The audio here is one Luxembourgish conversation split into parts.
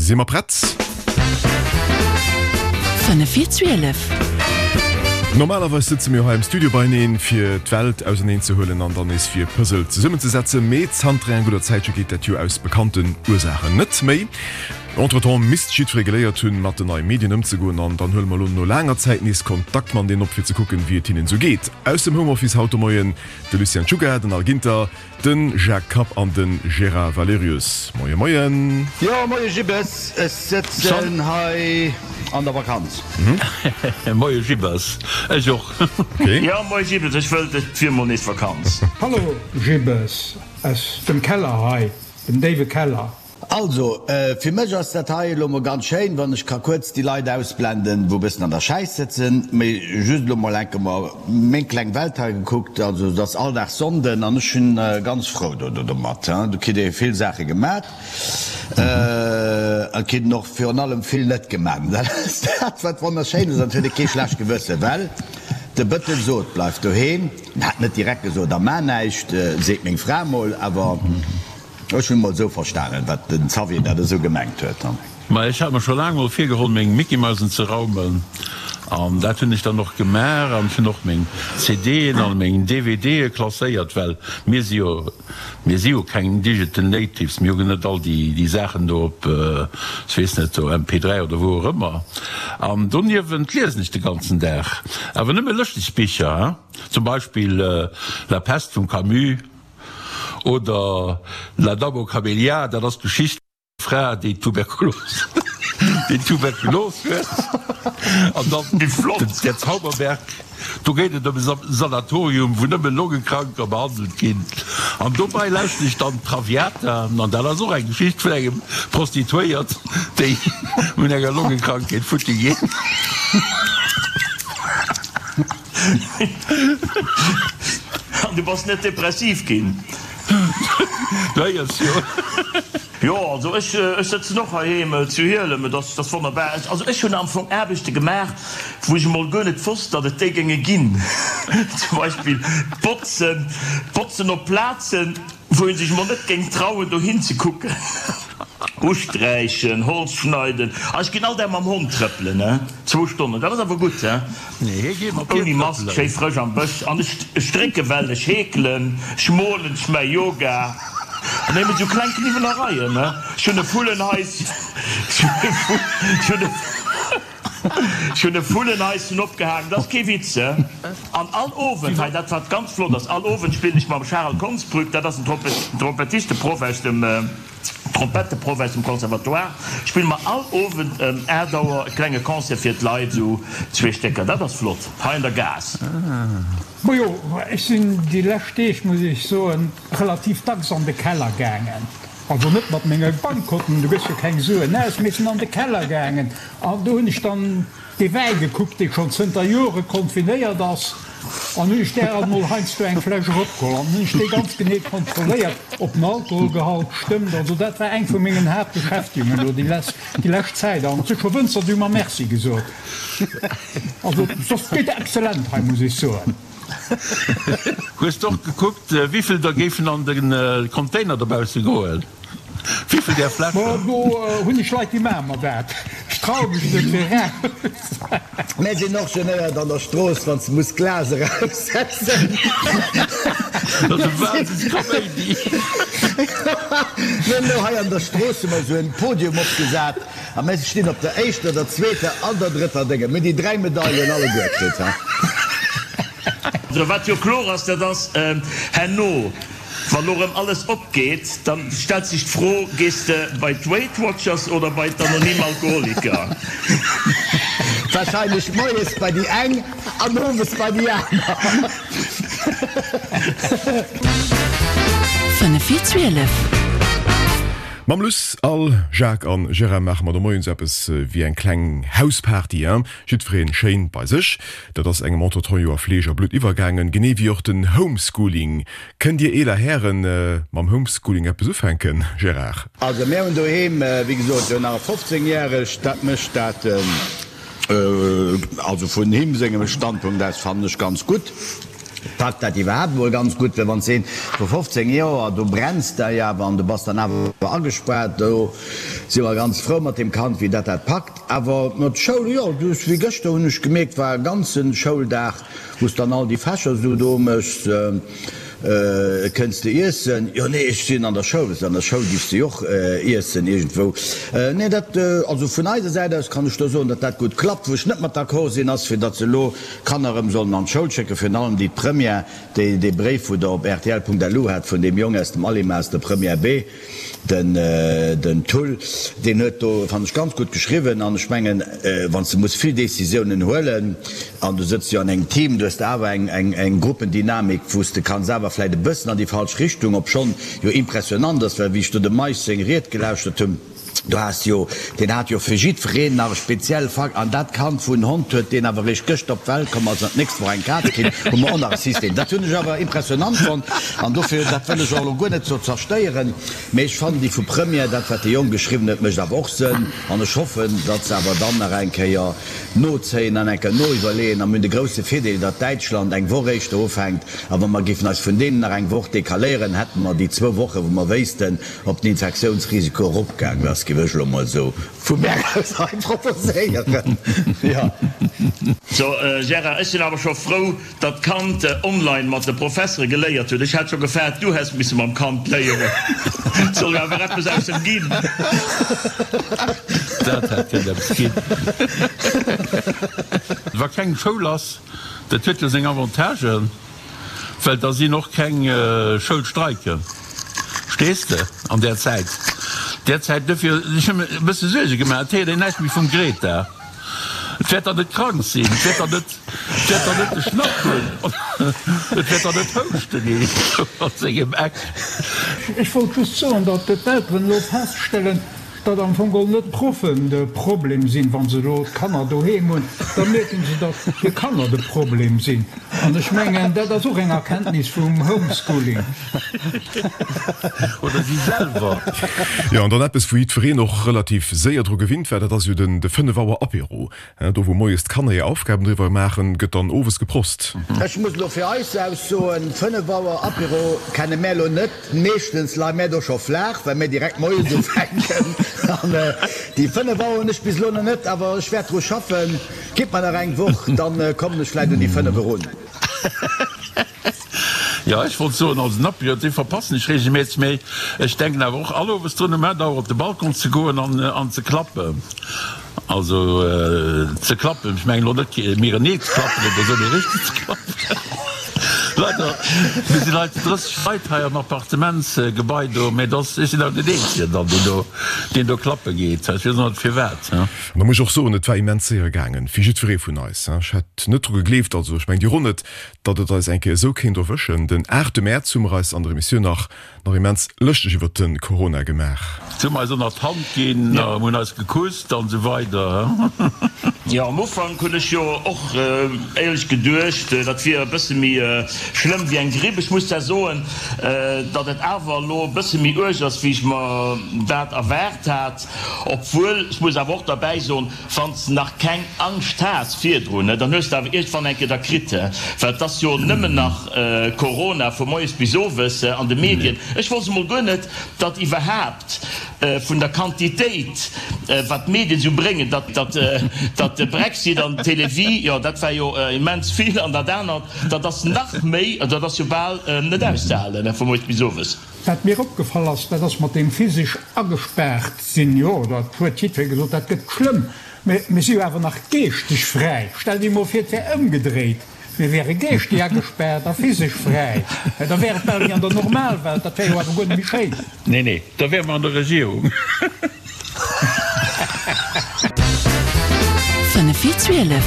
Si mer prett? 5 vir 12. Normalerweis sëtze mir hei am Studio beieneen, fir d'Welt auserneen ze huelen an dann nees fir Puzzle zesummenzesetzen. Mee zanter enger gudder Zäitche geet dat jo aus bekannten Ursaachen net méi. Entretemps misst jiddweree geléiert hunn, mat den neie Medien ëmzegoen an dann huele mer elo no laanger Zäit nees Kontakt mat deenen op, fir ze kucken, wéi et hinnen esou geet. Aus dem Homeoffice haut de Moien de Lucien Czuga, den Al Ginter, De Jacques Kapp an de Gérard Valerius. Moie Moien. Jo, moie Gibbes, ech sëtzen hei an der Vakanz. Moie Gibbes, ech och. Jo, moie Gibbes, ech wëllt et wier mol nees Vakanz. Hallo Gibbes, aus dem Keller hei, dem déiwe Keller. Also, fir mech ass dat hei elo mol ganz schéin, wann ech ka kuerz déi Leit ausblenden, wou e bëssen an der Schäiss sëtzen, mee just elo mol enke mer meng kleng Welt hei gekuckt. Also, et ass all Dag Sonnden an ech hunn ganz frou do domat. Do kritt ee vill Saache gemat, et kritt een och virun allem vill net gemat. Dat ass dat, wat wonnerschéin ass an et huet ee kee schlecht Gewëssen, well de Bëttel sot, Bleif doheem. En hat net direkt gesot, a mar näischt, seet meng Fra mol, awer. Ech hunn mol esou verstanen wat den Xavier dat esou gemengt huet. Ma ech hat mer scho laang mol virgeholl meng Mickey-Mausen ze raumen an dat hunn ech dann och gemaach an ech hunn och meng CDen an meng DVDe klasséiert, well mir si jo, mir si jo keng Digital Natives, mir hu net all déi déi Saachen do op, ech weess net, do MP3 oder wou och ëmmer. An doniewent liesen ech de ganzen Dag, awer nëmme lëschteg Bicher, hein, zum Beispill La Peste vum Camus. Oder La Dame aux Camélias, dat ass d'Geschicht vun der Fra, déi Tuberkulos, déi Tuberkulos huet. An dann Der Zauberberg, do geet et ëm e Sanatorium, wou nëmme Longekranker behandelt ginn. An dobei lauschten ech dann Traviata, an dat ass och eng Geschicht vun engem Prostituéiert, déi un enger Longekrankheet futti geet. An du bass net depressiv ginn? Du héiers jo. Jo, also ech sëtzen och heiheem zu Hielem, et ass wonnerbar. Also ech hunn am Fong Aarbechte gemaach, wou ech emol guer net wosst, datt et déi géinge ginn. Zum Beispill d'Botzen, d'Botzen op Plazen, wou ee sech emol net géing trauen dohin ze kucken. Usträichen, Holz schneiden, a ech ginn all Dag mam Hond trëppelen, he, zwou Stonnen, dat ass awer gutt, he, ouni Mask, schéi frësch am Bësch, an ech strécke well, ech heekelen, ech molen, ech maache Yoga, an nëmmen esou kleng Kniwwelereien, he, ech hunn e Vullenhaischen, ech hunn e. Ech hunn e Vullenhaischen opgehaangen, dat ass kee Witz, he. An all Owend, hei dat wat ganz flott ass, all Owend spillen ech mam Charel Konsbrück, dat ass en Trompettisteproff aus dem, Trompetteproff aus dem Conservatoire, spille mer all Owend ëm 8 Auer e klenge Concert fir d'Leit, esou zwee Stécker, dat ass flott, hei an der Gaass. Majo, ech sinn déi lescht Deeg, muss ech soen, relativ dacks an de Keller gaangen. Also net mat menge Bankkonten, du gëss jo keng Suen aus, mee ech sinn an de Keller gaangen an do hunn ech dann dee Wäi gekuckt, dee schonn zënter Jore konfinéiert ass, an hunn ech där alt mol heiansdo eng Fläsch eropgeholl an hunn ech déi ganz genee kontrolléiert, ob den Alkoholgehalt stëmmt. Also dat war eng vu mengen Haaptbeschäftegungen elo déi lescht Zäit an et si scho Wënzer, déi hu mer Merci gesot. Also soss geet exzellent hei, muss ech soen. Hues de och gekuckt, wivill der géifen an de Container dobausse goen? Wivill där Fläschen? Ma do hunn ech Leit, déi maache mer dat. Ech traue mech net fir eraus. Mär sinn och genéiert an der Strooss, wann s de muss d'Glas eraussetzen. Dat ass e Wahnsinnskaméidi. Mir hunn elo hei an der Strooss hu mer esou en Podium opgesat. A mir stinn op der éischter, der zweeter an der drëtter Dénge. Mir hunn déi 3 Medailen alleguer kritt, ha. Also wat jo kloer ass, dat ass, herno, wa lo rëm alles opgeet, da stellt sech d'Fro, Gees de bei d'Weight Watchers oder bei d'Anonym Alkoholiker? Wahrscheinlech moies bei déi eng an owes bei déi aner. 5 vir 12. Mam Luss, Al, Jacques an Gérard maache mer de Moien sou eppes wéi eng kleng Hausparty, hein? Jiddwereen schéin bei sech. Dat ass engem entretemps jo a Fleesch a Blutt iwwergaangen, genee wéi och den Homeschooling. Kënnt dir eeler Hären mam Homeschooling eppes ufänken, Gérard? Also mär hunn doheem, wéi gesot, jo nach e 15 järegt, dat mécht dat, also vun him sengem Standpunkt aus fannen ech ganz gutt. Packt dat iwwerhaapt emol ganz gutt, well wann s de een vu 15 Joer, do brenns de jo awer an du bass dann awer agespaart, do si mer ganz frou mat deem Kand, wéi dat dat packt. Awer mat Schoul, jo, du hues wéi gëschter hunn ech gemierkt, war e ganze Schouldag, wou s dann all déi Fächer esou do méchs, kënns de iessen? Jo, nee, ech sinn an der Schoul. An der Schoul giffs de jo och iessen iergendwou. Nee, dat, also vun eiser Säit aus kann ech do soen, datt dat gutt klappt. Wou ech net mat d'accord sinn, ass fir datt se elo Kanner erëm sollen an d'Schoul schécken, virun allem déi d'Première, déi dee Bréif, wou Der op rtl.lu hat vun deem Jong aus dem Alima aus der Première B, den den Thull, deen huet do, fannen ech, ganz gutt geschriwwen. An ech mengen, wann s de muss vill Décisiounen huelen an du sëtz jo an engem Team, du hues de awer eng eng eng Gruppendynamik, wou s de kanns awer vläicht e bëssen an déi falsch Richtung, obschonn jo impressionant ass, well wéi ech do dem Meisch seng Ried gelauschtert hunn, Du has jo, deen hat jo fir jiddwereen nach e speziell Fak, an dat Kand wou en Hond huet, deen awer eréischt gëschter op d'Welt komm ass an d'nächst Woch eng Kaz kritt, hu mer och nach e System. Dat hunn ech awer impressionant fonnt an dofir, dat wëll ech och elo guer net sou zerstéieren, mee ech fannen déi vu Première, dat wat de Jong geschriwwen huet, mécht awer och Sënn an ech hoffen, datt se awer dann nach eng Kéier nozéien an eng Kéier noiwwerleeën a mir hunn de grousse Virdeel, datt Däitschland eng Woch éischter ufänkt a wa mer géifen eis vun deenen nach eng Woch decaléieren, hätte mer déi zwou Woche wou mer wéissten, Ob den Infektiounsrisiko eropgaangen ass, géif ech elo mol esou vu mär aus hei proposéieren, jo. So Gérard, ech sinn awer scho frou, datt d'Kand online mat de Professere geléiert huet. Ech hat scho gefaart, du häss misse mam Kand léieren. Et soll jo awer eppes aus em ginn. Dat hätt kënnen eppes ginn. Wa keng Schoul ass, dat huet jo seng Avantagen. Well da sinn och keng Schoulstreiken, verstees de, an där Zäit. Där Zäit, dofir, ech hu mir e bësse Suerge gemaach, et héiert een näischt méi vum Greta. Et wäert dann net krank sinn, et wäert dann net, et wäert dann net de Schnapp hunn, et wäert dann net houschten iergendwou an sengem Eck. Ech wollt just soen, datt d'Elteren elo feststellen, Datt am Fong geholl net d'Proffen de Problem sinn, wa se elo d'Kanner doheem hunn, da mierken se, datt hir Kanner de Problem sinn. An ech mengen, dat ass och eng Erkenntnis vum Homeschooling. Oder si selwer. Jo, an dann eppes, wou jiddwereen och relativ séier dru gewinnt war, dat ass jo den de 5 Auer Apéro. Do wou moies d'Kanner hir Aufgaben driwwer maachen, gëtt dann owes geprost. Ech muss elo fir eis aus soen, 5 Auer Apéro kenne mär elo net. Meeschtens leie mär do scho flaach, well mär direkt moies ufänken. An déi 5 Auer hunn ech bis elo nach net, awer ech wäert dru schaffen. Gitt mer nach eng Woch, dann kommen ech vläit un déi 5 erun. Jo, ech wollt soen, also den Apéro, dee verpassen ech regelméisseg, mee ech denken awer och all Owes drun, um 8 Auer op de Balcon ze goen an ze klappen. Also ze klappen, ech mengen elo net mirenee ze klappen oder esou, mee richteg ze klappen. Leider, mir sinn hei 30 Leit hei am Appartementsgebai do, mee dass, ech sinn awer deen Eenzegen dann, deen do, deen do klappe geet. Ech weess och net firwat. An da muss ech och soen, et war immens séier gaangen, fir jiddweree vun eis. Ech hätt net dru gegleeft, also ech mengen Dir och net, datt et eis eng Kéier esou kéint erwëschen. Den 8 Mäerz hu mer eis an der Emissioun nach nach immens lëschteg iwwert de Corona gemaach. Si hu mer eis ënnert d'Hand ginn, hunn eis gekusst an esou weider. Jo, am Ufank hunn ech jo och éierlech geduecht, dat wier e bësse méi schlëmm wéi eng Gripp. Ech muss zwar soen, datt et awer elo e bësse méi uerg ass, wéi ech mer dat erwaart hat. Obwuel, ech muss awer och derbäi soen, Wann s de nach keng Angscht has virdrun, dann hues de awer iergendwann eng Kéier da kritt, well et ass jo nëmmen nach Corona vu moies bis owes an de Medien. Ech wosst emol guer net, datt iwwerhaapt vun der Quantitéit, wat d'Medien esou bréngen, datt datt de Brexit an d'Télévie, jo dat war jo immens vill, an dat anert, dat ass nach méi, dat ass jo bal net auszehalen vu moies bis owes. Wat mir opgefall ass, dat ass mat deem physesch agespaart sinn. Jo, dat huet jiddweree gesot, dat gëtt schlëmm. Mä mir si jo awer nach geeschteg fräi. Stell dir emol vir, et wär ëmgedréit, mir wäre geeschteg agespaart a physesch fräi. Da wär et bal wéi an der Normalwelt. Dat wär jo awer guer net méi schéin. Nee, nee, da wäre mer an der Regierung. 5 vir 12.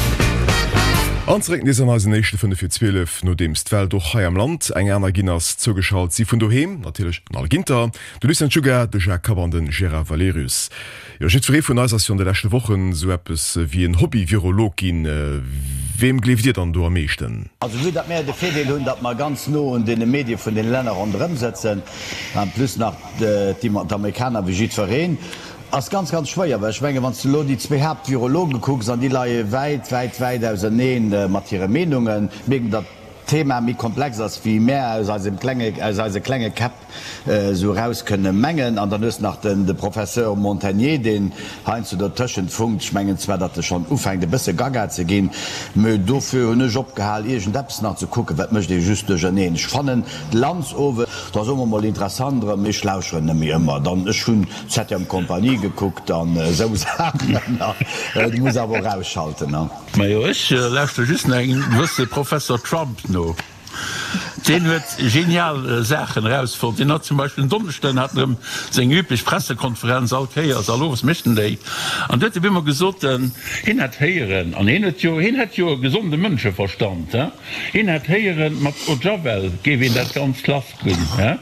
An zeréck nees an eisen éischte 5 vir 12, nodeems d'Welt och hei am Land eng aner ginn ass. Zougeschalt si vun doheem natierlech den Al Ginter, de Lucien Czuga, de Jacques Kapp an de Gérard Valerius. Jo, jiddweree vun eis ass jo an de leschte Wochen esou eppes wéi en Hobby-Virolog ginn. Weem gleeft Dir dann do am meeschten? Also vue datt mär de Virdeel hunn, datt mer ganz no un deene Medie vun deene Länner ronderëm sëtzen, en plus nach d'Amerikaner wéi jiddwereen, ass ganz, ganz schwéier, well ech mengen, wann s de elo déi zwéi Haaptvirologe kucks, an déi leie wäit, wäit, wäit ausernee mat hire Meenungen, mierken, datt. d'Thema méi komplex ass, wéi mär aus eisem klenge, aus eise klenge Käpp esou eraus kënne mengen. An dann hues de nach den, de Professeur Montagné, deen heiansdo dotëschent funkt. Ech mengen zwar, datt e schonn ufänkt e bësse gaga ze ginn, mä dofir hunn ech opgehal iergendeppes nach ze kucken, well et mécht ee just duercherneen. Ech fannen d'Lanz owe, dat ass och emol interessant erëm, mee ech lauscheren net méi ëmmer. Dann, ech hunn Septième Compagnie gekuckt an esou Saachen. Du muss awer och ausschalten, ne? Majo, ech lauschteren just nach engem gewësse Professor Trump no. Deen huet genial Saachen erausfonnt. Deen hat zum Beispill en Donneschden hat en erëm seng üblech Pressekonferenz, all Kéiers, all Owes mécht en déi. An du huet e bemol gesot, hien hätt héieren, an hien huet jo, hien hätt jo e gesonde Mënscheverstand, he, hien hätt héieren, mat Eau de Javel géif een dat Ganzt lass ginn, he,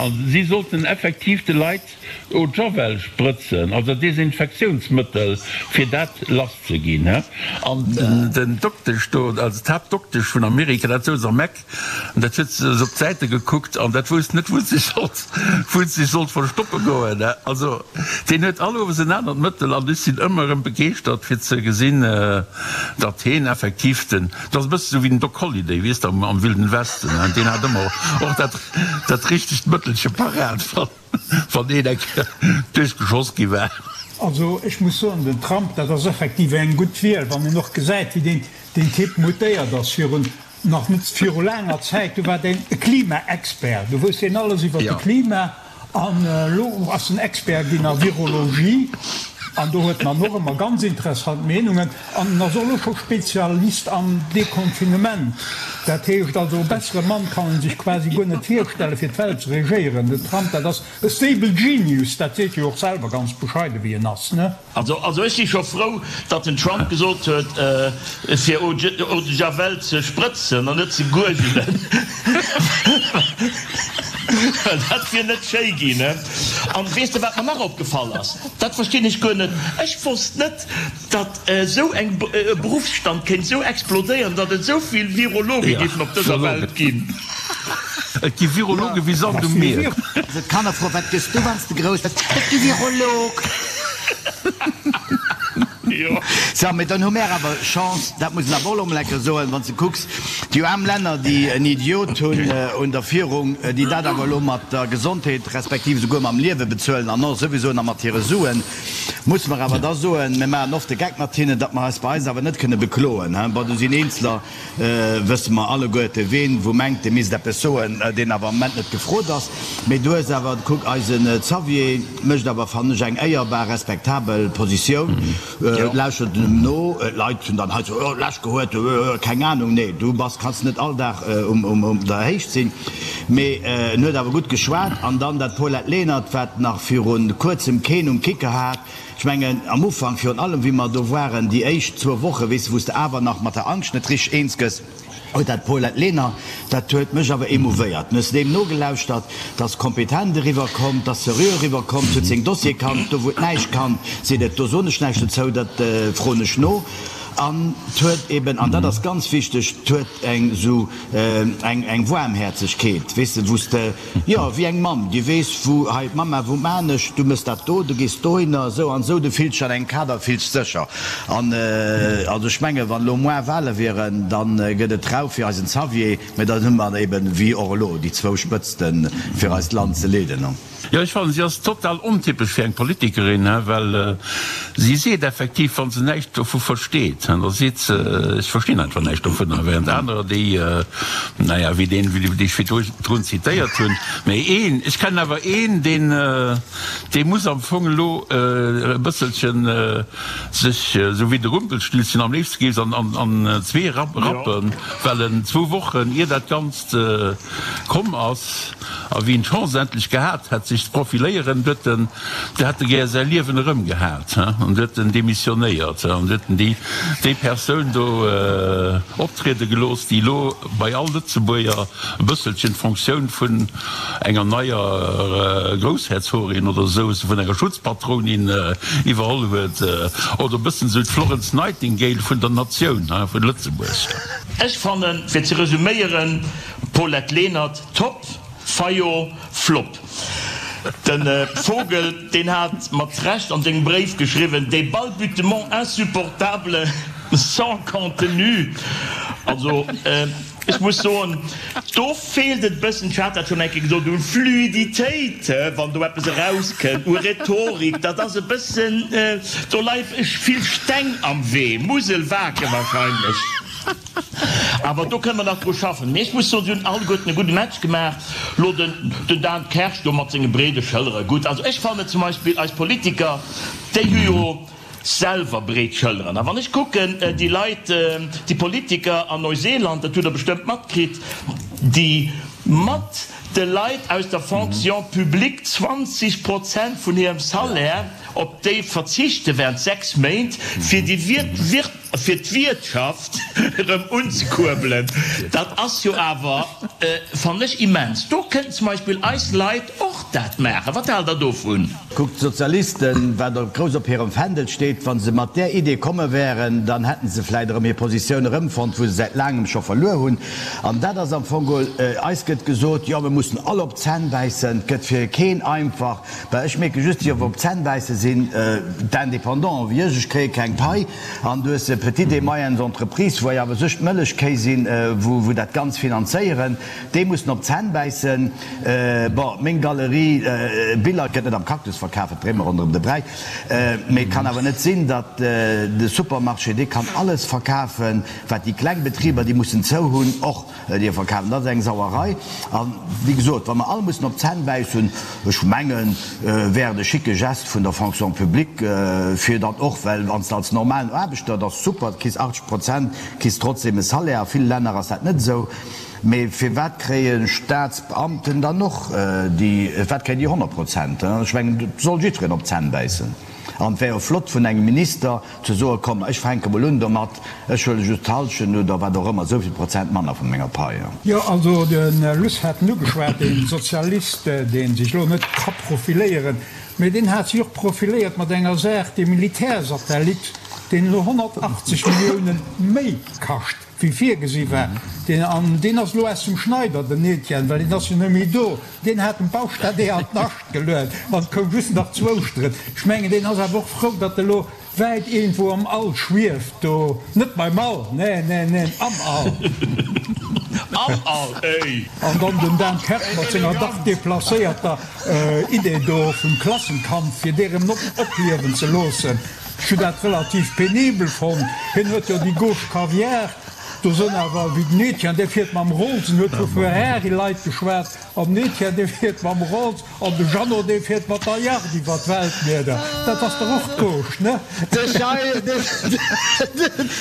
a si sollten effektiv de Leit Eau de Javel sprëtzen, also Desinfektiounsmëttel, fir dat lass ze ginn. An den Doktesch do, also d'Haaptdoktesch vun Amerika, dat souz am Eck, an dat huet se op d'Säite gekuckt an dat wousst net, wou se sech sollt, wou se sech sollt verstoppe goen. Also deen huet all Owes en anert Mëttel an ech sinn ëmmer erëm begeeschtert fir ze gesinn, datt heen effektiv den, dat ass e bësse sou wéi den Doc Holliday, weess de, am Wilden Westen, deen hat ëmmer och dat, dat richtegt Mëttelche parat. Wann een eng Kéier duerchgeschoss gi war. Also ech muss soen, den Trump, dat ass effektiv eng gutt Wiel, wann een och gesäit, wéi deen deen Typ mutéiert ass. Virun nach net viru laanger Zäit, do war deen e Klimaexpert, do wousst deen alles iwwer de Klima, an elo ass en Expert ginn a Virologie, an do huet en dann och ëmmer ganz interessant Meenungen. An en ass och elo scho Spezialist am Deconfinement. Dat heescht also, e bessere Mann kann een sech quasi guer net virstellen, fir d'Welt ze regéieren. Den Trump, dat ass e stable genius, dat seet e jo och selwer, ganz bescheide wéi en ass, ne? Also, also ech si scho frou, datt den Trump gesot huet, fir Eau de Javel ze sprëtzen an net ze guergelen, well dat wier net schéi ginn, ne? An weess de, wat mer nach opgefall ass? Dat verstinn ech guer net. Ech wosst net, Datt esou eng e Beruffsstand kéint esou explodéieren, datt et esou vill Virologe géifen op dëser Welt ginn. Et gi Virologe wéi Sand um Mier. Also d'Kanner froen, Wat gëss du, wann s de grouss bass? Ech gi Virolog. Jo. So, mee dann hu mär awer Chance, dat muss een awer och elo emol eng Kéier soen, wann s de kucks, déi aarm Länner, déi en Idiot hunn un der Führung, déi dat awer elo mat der Gesondheet respektiv esouguer mam Liewe bezuelen an och souwisou nach mat hire Suen, Musse mer awer da soen, mir maachen oft de Geck mat hinnen, datt mer eis bei eis awer net kënne bekloen. Bon, do sinn Eenzeler, wësse mer alleguerte ween, wou mengt, dee misst eppes soen, deen awer am Moment net gefrot ass. Mee du hues awer, kuck, eisen Xavier mécht awer, fannen ech, eng éierbar, respektabel Positioun, lauschtert em no. D'Leit hunn dann hei sou, oh, lech gehuet, keng Anung. Nee, du bass, kanns net all Dag um der Héicht sinn. Mee en huet awer gutt geschwat. An dann dat Paulette Lenert, wat nach viru kuerzem keen um Kicker hat. Ech mengen, am Ufank virun allem, wéi mer do waren, déi éischt zwou Woche, weess de, wou s de awer nach mat der Angscht net richteg eens gëss, huet dat Paulette Lenert, dat huet mech awer émouvéiert. Hues de deem nogelauschtert, 't ass kompetent eriwwer komm, 't ass seriö eriwwer komm, 't huet seng Dossiere kannt, do wou et näischt kannt, seet et, do soen ech näischt dozou, dat froen ech no. An 't huet eben, an dat ass ganz wichteg, 't huet eng esou eng eng Waarmhäerzegkeet, weess de, wou s de, jo, wéi eng Mamm, déi weess, wou, hei d'Mamma, wou maan ech, du mëss dat do, du gees dohinner, esou an esou, du fills dech an engem Kader, fills dech sécher. An also ech menge wann elo moar Wahle wieren, da gëtt et rau fir eisen Xavier, mä dann hu mer eben, wéi och elo, déi zwou Spëtzten, fir eist Land ze leeden. Jo, ech fannen, si ass total ontypesch fir eng Politikerin, well si seet effektiv, wa se näischt dovu versteet, da seet se, ech verstinn einfach näischt dovunner, während anerer, déi, naja, wéi deen, dee ech virdrun zitéiert hunn, mä een, ech kennen awer een, deen, dee muss am Fong elo e bësselchen sech, esou wéi de Rumpelstilzchen, am léifste géif se an zwee rappen, well en zwou Wochen, ier dat Ganzt komm ass, A wien d'Chance endlech gehat hätt sech ze profiléieren, huet en, de hätt e gär säi Liewen erëm gehat, an huet en demissionéiert an huet en déi, déi Persoun do optriede gelooss, déi elo bei all Lëtzebuerger e bësselchen d'Fonctioun vun enger neier Groussherzogin oder esou, vun enger Schutzpatronin iwwerholl huet, oder e bëssen esou d'Florence Nightingale vun der Natioun, vun Lëtzebuerg. Ech fannen, fir ze resuméieren, Paulette Lenert, Top, Fayot, Flop. De Vogel, deen hat mat Recht an sengem Bréif geschriwwen, Des balbutements insupportables sans contenu. Also ech muss soen, do feelt et e bëssen, ech hat dat schonn eng Kéier gesot, un Fluiditéit, wann do eppes erauskënnt, u Rhetorik. Dat ass e bëssen, do leie vill Steng am Wee, Musel-Wake wahrscheinlech. Awer do kënne mer nach dru schaffen. Mee ech muss soen, si hunn alleguerten e gudde Match gemaach. Lo den den Dan Kersch do mat senge breede Schëllere, gutt. Also ech fannen zum Beispill eis Politiker, déi hu jo selwer breet Schëlleren. A wann ech kucken, déi Leit, déi Politiker an Neuseeland, dat hutt Der bestëmmt matkritt, déi mat de Leit aus der Fonction publique 20 Prozent vun hirem Salaire, op déi verzichte während 6 Méint, fir déi fir d'Wirtschaft erëm unzekuerbelen, dat ass jo awer, fannen ech, immens. Do kënnten zum Beispill eis Leit och dat maachen. Wat haalt Der dovun? Kuckt, d'Sozialisten, wat och grouss op hirem Fändel steet, wa se mat där Idee komme wären, dann hätte se vläicht erëm hir Positioun erëmfonnt, wou se säit laangem scho verluer hunn. An dat ass am Fong geholl, eis gëtt gesot, jo, mir mussen all op d'Zänn bäissen, et gëtt fir keen einfach. Well ech mierke just, déi op d'Zänn bäisse sinn d'Indépendants wéi ech, ech kréie keng Pai. An du hues Petites et moyennes entreprises, wou awer sech d'Mëllechkéi sinn, wou dat Ganz finanzéieren, déi mussen op d'Zänn bäissen. Bon, meng Galerie Biller gëtt net am Cactus verkaf, et dréi mer ronderëm de Bräi. Mee et kann awer net sinn, datt de Supermarché, dee kann alles verkafen, wat déi kleng Betriber, déi mussen zou hunn, och. Dir verkafen, dat ass eng Sauerei. A wéi gesot, wa mer all mussen op d'Zänn bäissen, ech mengen, wär et e schicke Gest vun der Fonction publique, fir dann och, well wann s de als normalen Aarbechter, dat ass super, du kriss 80 Prozent, kriss trotzdem e Salaire, a ville Länner ass dat net esou, mee firwat kréie Staatsbeamten dann och déi, firwat kréien déi 100 Prozent? Ech mengen, et soll jiddwereen op d'Zänn bäissen. An et wär jo flott vun engem Minister ze soen, komm, ech fänke mol un domat, ech huele just d'Hallschent oder wat och ëmmer, esou vill Prozent manner vu menger Pai. Jo, also de Luss hat en ugeschwat, dee Sozialist, dee sech elo net ka profiléieren, mee deen hat sech och profiléiert mat enger Saach, dee Militärsatellit, deen elo 180 Milliounen méi kascht, wéi virgesi war. Deen, an deen ass elo aus dem Schneider, den Etienne, well deen ass jo net méi do. Deen hat dem Baustadee an d'Nascht geluet an et koum just nach z'Ouschteren. Ech mengen, deen ass awer och frou, datt e lo wäit iergendwou am All schwieft do. Net beim All, neen, neen, neen, am All. Am All, éi! An dann den Dan Kersch mat senger dach deplacéierter Idee do vum Klassenkampf, fir dee rëm opliewen ze loossen. Ech hunn dat relativ penibel fonnt. Hien huet jo déi Gauche Caviar. Do sënn awer wéi den Etienne, dee fiert mam Rolls, en huet vu Ferrari-Leit geschwat, an den Etienne, dee fiert mam Rolls, an de Jeannot, dee fiert mat der Yacht iwwer d'Weltmieder. Dat ass dach och d'Gauche, ne? De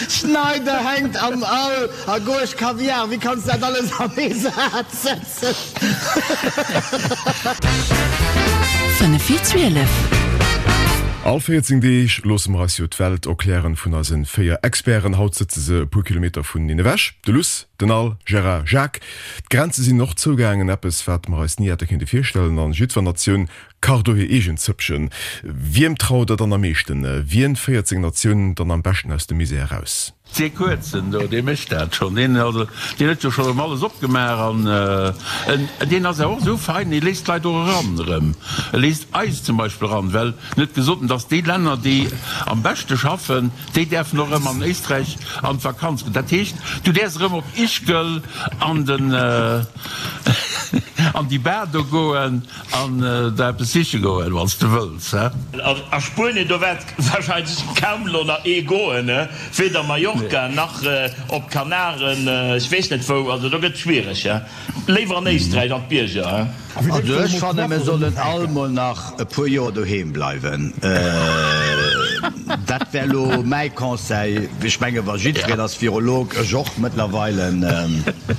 Schneider hänkt am All a Gauche Kaviar, wéi kanns dat alles an ee Saz setzen? 5 vir 12. All 14 Deeg loosse mer eis jo d'Welt erklären vun eise 4 Experten. Haut sëtze se e puer Kilometer vuneneen ewech. De Luss, den Al, Gérard, Jacques. D'Grenze sinn och zougaangen, eppes wat mer eis ni hätte kéinte virstellen. An jiddwer Natioun kacht do hir eegen Zëppchen. Wiem traut der dann am meeschten? Wien féiert seng Natioun dann am beschten aus dem Misär eraus? Dee Kuerzen do, dee mécht dat schonn. Deen, also, deen huet jo schonn erëm alles opgemaach an en, deen ass awer och esou fein, dee léisst d'Leit och eran erëm. E léisst eis zum Beispill eran, well en huet gesot, dass déi Länner, déi am beschte schaffen, déi däerfen och erëm an Éisträich an d'Vakanz goen. Dat heescht, du däerfs erëm op Ischgl an den, an déi Bar do goen an der eppes siche goen, wann s de wëlls, he. A Spuenien, do wäert wahrscheinlech kaum elo nach ee goen, he. Weder Mallorca nach op d'Kanaren, ech weess net wou, also do gëtt et schwiereg, he. Léiwer an Éisträich an d'Bierger, he. Also ech fannen mir sollen all mol nach e puer Joer doheem bleiwen, dat wär lo mäi Conseil. Ech menge wa jiddwereen ass Virolog, ech och mëttlerweile.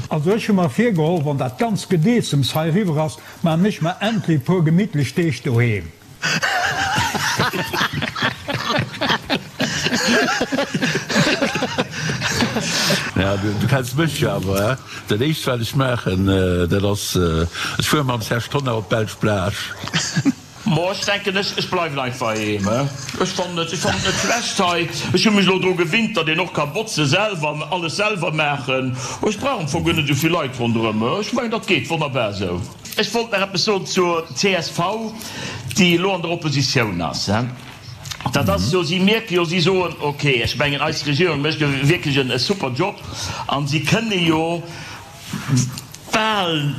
Also ech hu mer virgeholl, wann dat ganz Gedeessems hei eriwwer ass, maan ech mer endlech e puer gemittlech Deeg doheem. Ja, du kenns mech jo awer, he? Dat éischt wat ech maachen, dat ass, ech fuere mam Serge Tonnar op d'belsch Plage. Mo, ech denken, ech, ech bleiwen einfach heem, he? Ech fannen et, ech fannen et net schlecht hei. Ech hu mech elo dru gewinnt, datt een och ka botze selwer an alles selwer maachen. Ech brauch am Fong guer net esou vill Leit ronderëm. Ech mengen, dat geet wonnerbar esou. Ech wollt nach eppes soen zur csv, déi elo an der Oppositioun ass. Dat ass jo, si mierke jo, si soen, ok, ech mengen eis Regierung mécht jo wierklech en super Job an si kënne jo bal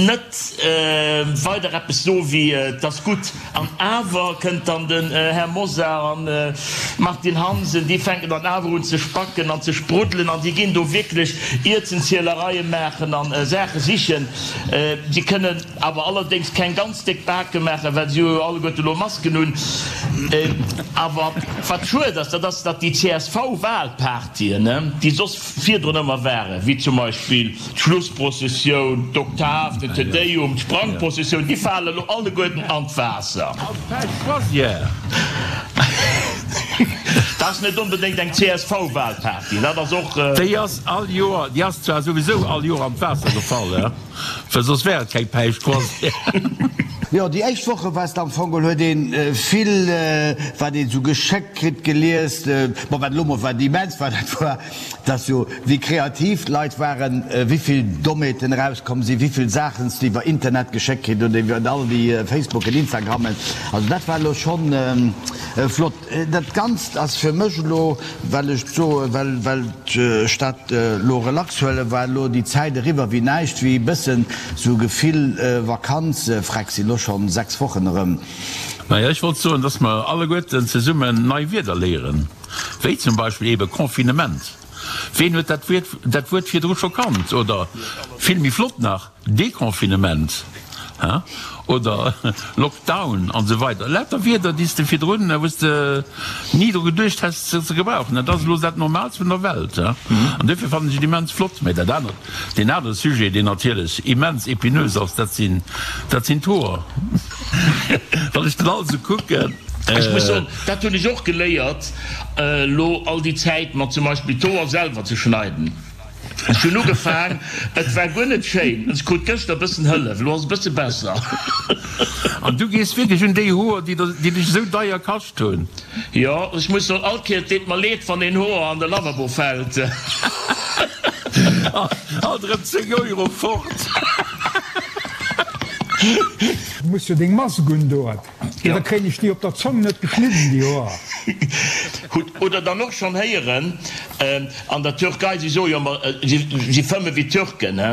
net weider eppes soe wéi et ass gutt. An awer kënnt dann den Här Mosar an d'Martine Hansen, déi fänken dann awer un ze spacken an ze spruddelen an déi ginn do wierklech Ierzenzielereie maachen a Saache sichen. Si kënnen awer allerdéngs keng ganz déck Bake maachen, well si hu jo alleguerte elo Masken un. Awer wat schued ass, dat ass, datt déi CSV-Wahlpartyen, déi soss virdrun ëmmer waren, wéi zum Beispill d'Schlussprozessioun, d'Oktav, den Te Deum, d'Sprangprozessioun, déi falen elo alleguerten an d'Waasser. An d'Pêche-Croisière. Dat ass net onbedéngt eng CSV-Wahlparty, dat ass och. Déi ass all Joer, déi ass zwar souwisou all Joer an d'Waasser gefall, well soss wär et keng Päischtcroisière. Jo, déi éischt Woche war et am Fong geholl, huet een vill, wat een esou geschéckt kritt, gelies. Bon, wat elo mol wat immens war, dat war, dass jo, wéi kreativ d'Leit waren, wéivill Dommheeten erauskomm sinn, wéivill Saachen s de iwwer Internet geschéckt kritt oder iwwer all déi Facebooken, Instagrammen. Also dat war elo schonn flott. Dat Ganzt ass fir mech elo, well ech soen, well well ech dat elo relax huelen, war elo déi Zäit eriwwer wéi näischt, wéi e bëssen sou Gefill Vakanz. Freck, sinn elo schonn 6 Wochen erëm. Naja, ech wollt soen, dass mer alleguerten zesummen nei Wierder léieren, wéi zum Beispill eebe Confinement. Ween huet dat Wuert dat Wuert virdru scho kannt? Oder vill méi flott nach, Deconfinement, he, oder Lockdown an esou weider. Lauter Wierder, déi s de virdrun, wou s de ni dru geduecht häss se ze gebrauchen. Dat ass elo dat Normaalst vun der Welt, he. An duerfir fannen ech et immens flott. Mä dat anert, deen anere Sujet, deen natierlech immens épineux ass, dat sinn, dat sinn d'Hoer. Wann ech den alt esou kucken. Ech muss soen, dat hunn ech och geléiert elo all déi Zäit, mer zum Beispill d'Hoer selwer ze schneiden. Ech hunn ugefaang, et war guer net schéin. Ech krut gëschter e bëssen Hëllef, elo ass et e bësse besser. An du gees wierklech un déi Hoer, déi dech esou deier kascht hunn? Jo, ech muss soen, all Kéier, et deet mer leed, wann een Hoer an de Lavabo fält. Alt erëm 10 Euro fort. Du muss jo deng Mask undoen. Jo, da kréien ech déi op der Zong net geschnidden, déi Hoer. Hutt Oder dann och schonn héieren, an der Türkei, si soe jo ëmmer, si fëmme wéi Türken, he,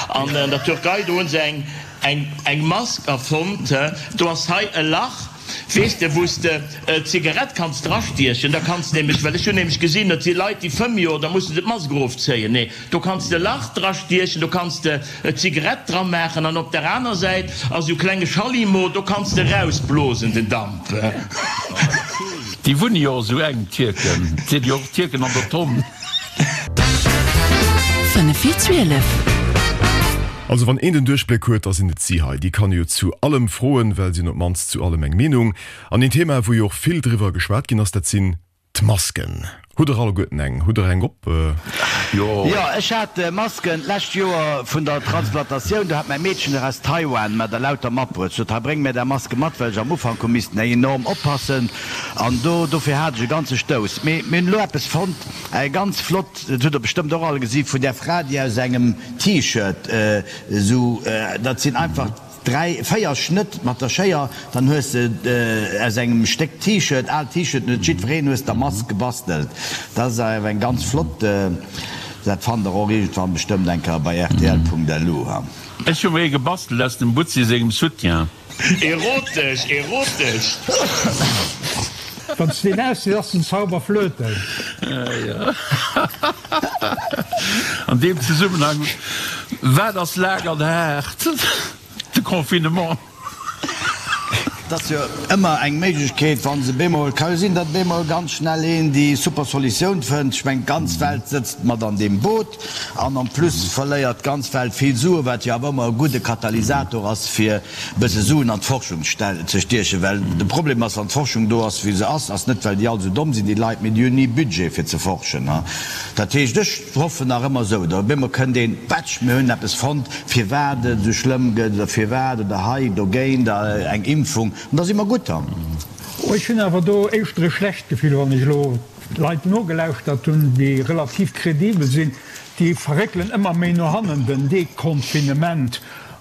an an der Türkei, do hu se eng, eng, eng Mask erfonnt, he, do ass hei e Lach, weess de, wou s de d'Zigarett kanns drastiechen, da kanns de nämlech, well ech hunn nämlech gesinn, et si Leit, déi fëmme jo, da musse se d'Mask erofzéien, nee. Do kanns de Lach dra stiechen, do kanns de Zigarett dra maachen an op der aner Säit ass esou klenge Schallimo, do kanns de rausblosen den Damp. Déi wunne jo och esou enk, d'Tierken. Et sinn jo och Tierken an der Tonn. 5 vir 12. Also wann een den Duerchbléck huet, da sinn et si hei. Déi kann ee jo zu allem froen, well si hunn op d'mannst zu allem eng Meenung. An een Thema, wou jo och vill driwwer geschwat ginn ass, dat sinn D'Masken. Hutt der alleguerten eng? Hutt der eng op? Jo. Jo, ech hat Masken d'lescht Joer vun der Transplantatioun. Do hat mäi Meedchen der aus Taiwan mer der lauter matbruet. Sot, hei bréng mir där Maske mat, well ech am Ufank hu missten eng enorm oppassen. An do, dofir hat ech e ganze Stouss. Mee mir hunn elo eppes fonnt, eng ganz flott, dat hutt der bestëmmt och all gesi vun där Fra, déi aus engem T-Shirt esou, dat sinn einfach, 3, 4 Schnëtt mat der Schéier, dann hues de aus engem Stéck T-Shirt, aalt T-Shirt, huet jiddwereen, hues der Mask gebastelt. Dat ass awer eng ganz flott, dat fannt der och iergendwann bestëmmt eng Kéier bei rtl.lu. Ech hu mer ee gebastelt aus dem Butzi sengem Soutien. Erotesch, erotesch! Wann s de deen ausziss, ass den Zauber flöten. An deem Zesummenhang, Wat ass laang an haart? De Confinement. Et ass jo ëmmer eng Méiglechkeet, wa se bemol, ka jo sinn, datt bemol ganz schnell een déi super Solutioun fënnt. Ech mengen, d'ganz Welt sëtzt mat an deem Boot an en plus verléiert d'ganz Welt vill Suen, wat jo awer ëmmer e gudde Katalysator ass, fir bësse Suen an d'Forschung ze stiechen, well de Problem ass, wann d'Forschung do ass wéi se ass, ass net well déi all esou domm sinn, déi Leit, mee déi hunn ni Budget fir ze forschen. Dat heescht, ech hoffen nach ëmmer esou, da op eemol kënnt een, Patsch, mir hunn eppes fonnt, firwat et esou schlëmm gëtt oder firwat oder hei dogéint eng Impfung, an da si mer gutt. Ech hunn awer do éischter e schlecht Gefill, wann ech elo Leit nogelauschtert hunn, déi relativ kredibel sinn, déi verréckelen ëmmer méi no hannen den Deconfinement.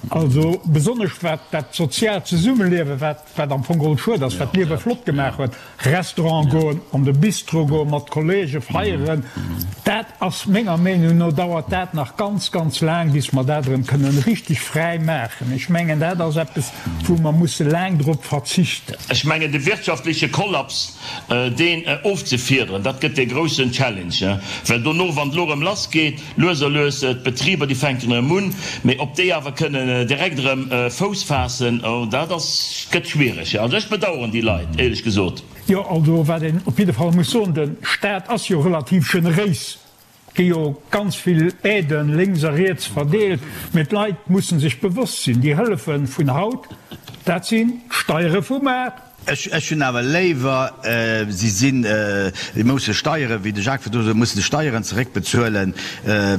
Also besonnesch wat dat soziaalt Zesummeliewen, wat wat am Fong geholl schued ass, wat d'Liewe flott gemaach huet, Restaurant goen, an de Bistro goen, mat Kollege feieren, dat ass menger Meenung no, dauert dat nach ganz, ganz laang, bis mer dat erëm kënnen richtig fräi maachen. Ech mengen, dat ass eppes, wou mer musse laang drop verzichten. Ech mengen, de wirtschaftleche Kollaps, deen ofzefiederen, dat gëtt dee groussen Challenge, well dono, wann et elo erëm lassgeet, Lues a lues, d'Betriber déi fänken erëm un, mee ob déi awer kënnen direkt erëm Fouss faassen, oh dat ass, gëtt schwiereg. Also ech bedauern déi Leit, éierlech gesot. Jo, also wat een op jidde Fall muss soen, de Staat ass jo relativ generéis, gi jo ganz vill Aiden lénks a riets verdeelt, mee d'Leit mussen sech bewosst sinn, déi Hëllefe vun haut, dat sinn d'Steiere vu mar. Ech hunn awer léiwer, si sinn, si musse Steieren, wéi de Jacques virdru sot, mussen Steieren zeréckbezuelen,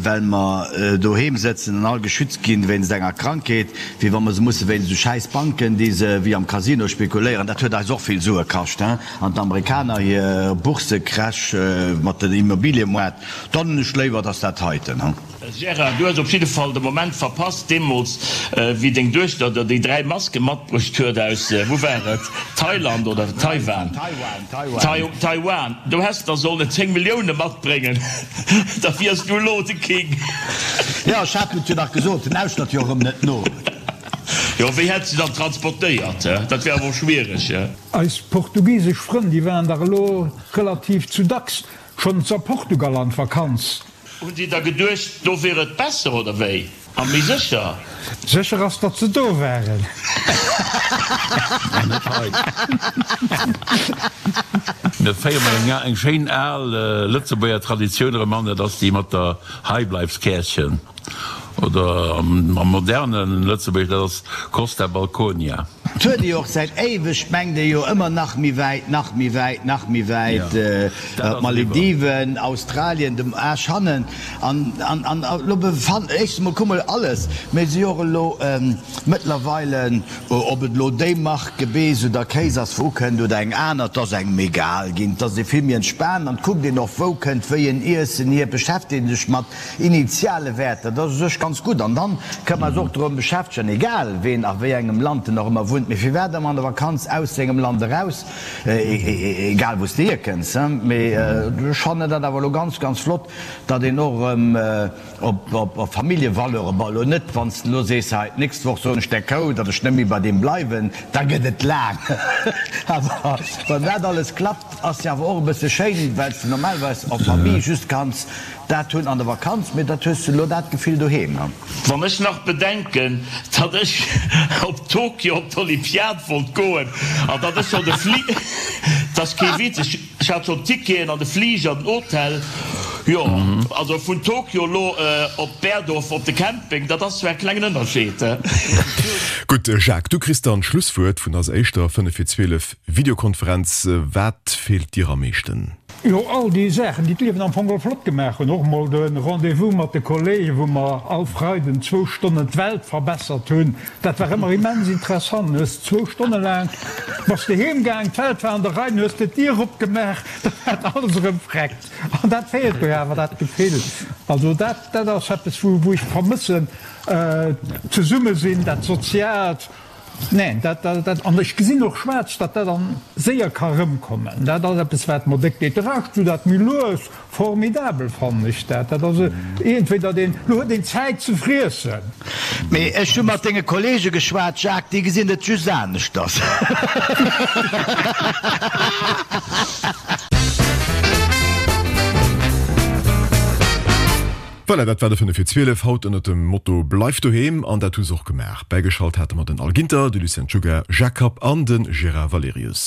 well mer doheem sëtzen an all geschützt ginn wéinst enger Krankheet, wéi wa mer se musse wéinst esou schäiss Banken, déi se wéi am Casino spekuléieren. Dat huet eis och vill Sue kascht, hein, an d'Amerikaner hir Bourse-Crash mat den Immobiliemoart. Dann hunn ech léiwer, dass dat heiten, hein. Gérard, du hues op jidde Fall de Moment verpasst, deemools wéi deng Duechter der déi 3 Maske matbruecht huet aus, wou war et, Thailand oder Taiwan? Taiwan. Do häss der sollen 10 Millioune matbréngen, da wiers du elo de King. Jo, ech hat et jo nach gesot, en lauschtert jo erëm net no. Jo, wéi hätt se dann transportéiert? Dat wär awer och schwiereg. Eis portugisesch Frënn, déi waren dach elo relativ zu dacks schonns a Portugal an d'Vakanz. Hunn si da geduecht, do wier et besser, oder wéi? A méi sécher? Sécher ass, datt se do waren. An net hei. Mir féiere mol eng schéin al Lëtzebuerger Traditioun erëm an, dat ass déi mat der Heibleifskäerchen. Oder am moderne Lëtzebuergesch, dat ass Costa Balconia. 't huet ee jo och säit éiweg, mengt ee jo ëmmer nach méi wäit, nach méi wäit, nach méi wäit, d'Malediven, Australien, dem Aasch hannen. An, an, an elo befan, éischstens emol kuck mol alles, mee si jo och elo mëttlerweile, ob et elo déi Mark Gebeess oder Kéis ass, wou ukënnt, oder eng aner, 't ass engem egal ginn, 't ass ee vill méi entspaant an 't kuckt een och, wou kënnt wéi en Iessen hier, beschäftegt ee sech mat Initiale Wäerter, dat ass u sech ganz gutt. An dann kënne mer eis och drëm beschäftegen, egal ween a wéi engem Land en och ëmmer wunnt, mee firwat ëmmer an der Vakanz aus sengem Land eraus, egal wou s de hierkënns. Mee ech fannen dat awer elo ganz, ganz flott, datt een och erëm op Familljevaleuren, bon elo net, wann s de elo sees, hei d'nächst Woch soen ech der Kou, datt ech net méi bei deem bleiwen, da gëtt et laang. Awer wann dat alles klappt, ass jo awer och e bësse schéin, well s de normalerweis en famille just kanns Dat hunn an der Vakanz, mee dat hues du elo dat Gefill doheem. Wann ech nach bedenken, datt ech op Tokio op d'Olympiad wollt goen an datt ech schonn de Fli, 't ass kee Witz, ech hat schonn d'Ticketen an de Fliger, den Hotel, jo, also vun Tokio elo op Berdorf op de Camping, dat ass zwar e klengen Ënnerscheed. Gutt, Jacques, du kriss dann d'Schlusswuert vun eiser éischter 5 vir 12 Videokonferenz. Wat feelt dir am meeschten? Jo, all déi Saachen, déi d'Liewen am Fong geholl flott gemaach hunn. Och mol de Rendez-vous mat de Kollegen, wou mer all Freiden zwou Stonnen d'Welt verbessert hunn. Dat war ëmmer immens interessant. Du hues zwou Stonne laang, bass de heem gaang, d'Welt war an der Rei, du hues de d'Dier opgemaach, da war alles erëm vreckt. An dat feelt mir awer, dat Gefill. Also dat, dat ass eppes, wou, wou ech vermëssen, d'Zesummesinn, dat Soziaalt. Neen, dat, dat, an ech gesinn och schwaarz, datt dat dann séier ka rëmkommen. Dat ass eppes, wat mer déck deet. De Rescht, wou dat méi lues, formidabel fannen ech dat. Dat ass iergendwéi, datt een, elo huet een Zäit ze friessen. Mee ech hu mat denge Kollege geschwat, Jacques, déi gesinn et just aneschters. Voilà, dat war de 5 vir 12 haut ënnert dem Motto Bleif doheem an dat hu se och gemaach. Bäigeschalt hate mer den Al Ginter, de Lucien Czuga, Jacques Kapp an de Gérard Valerius.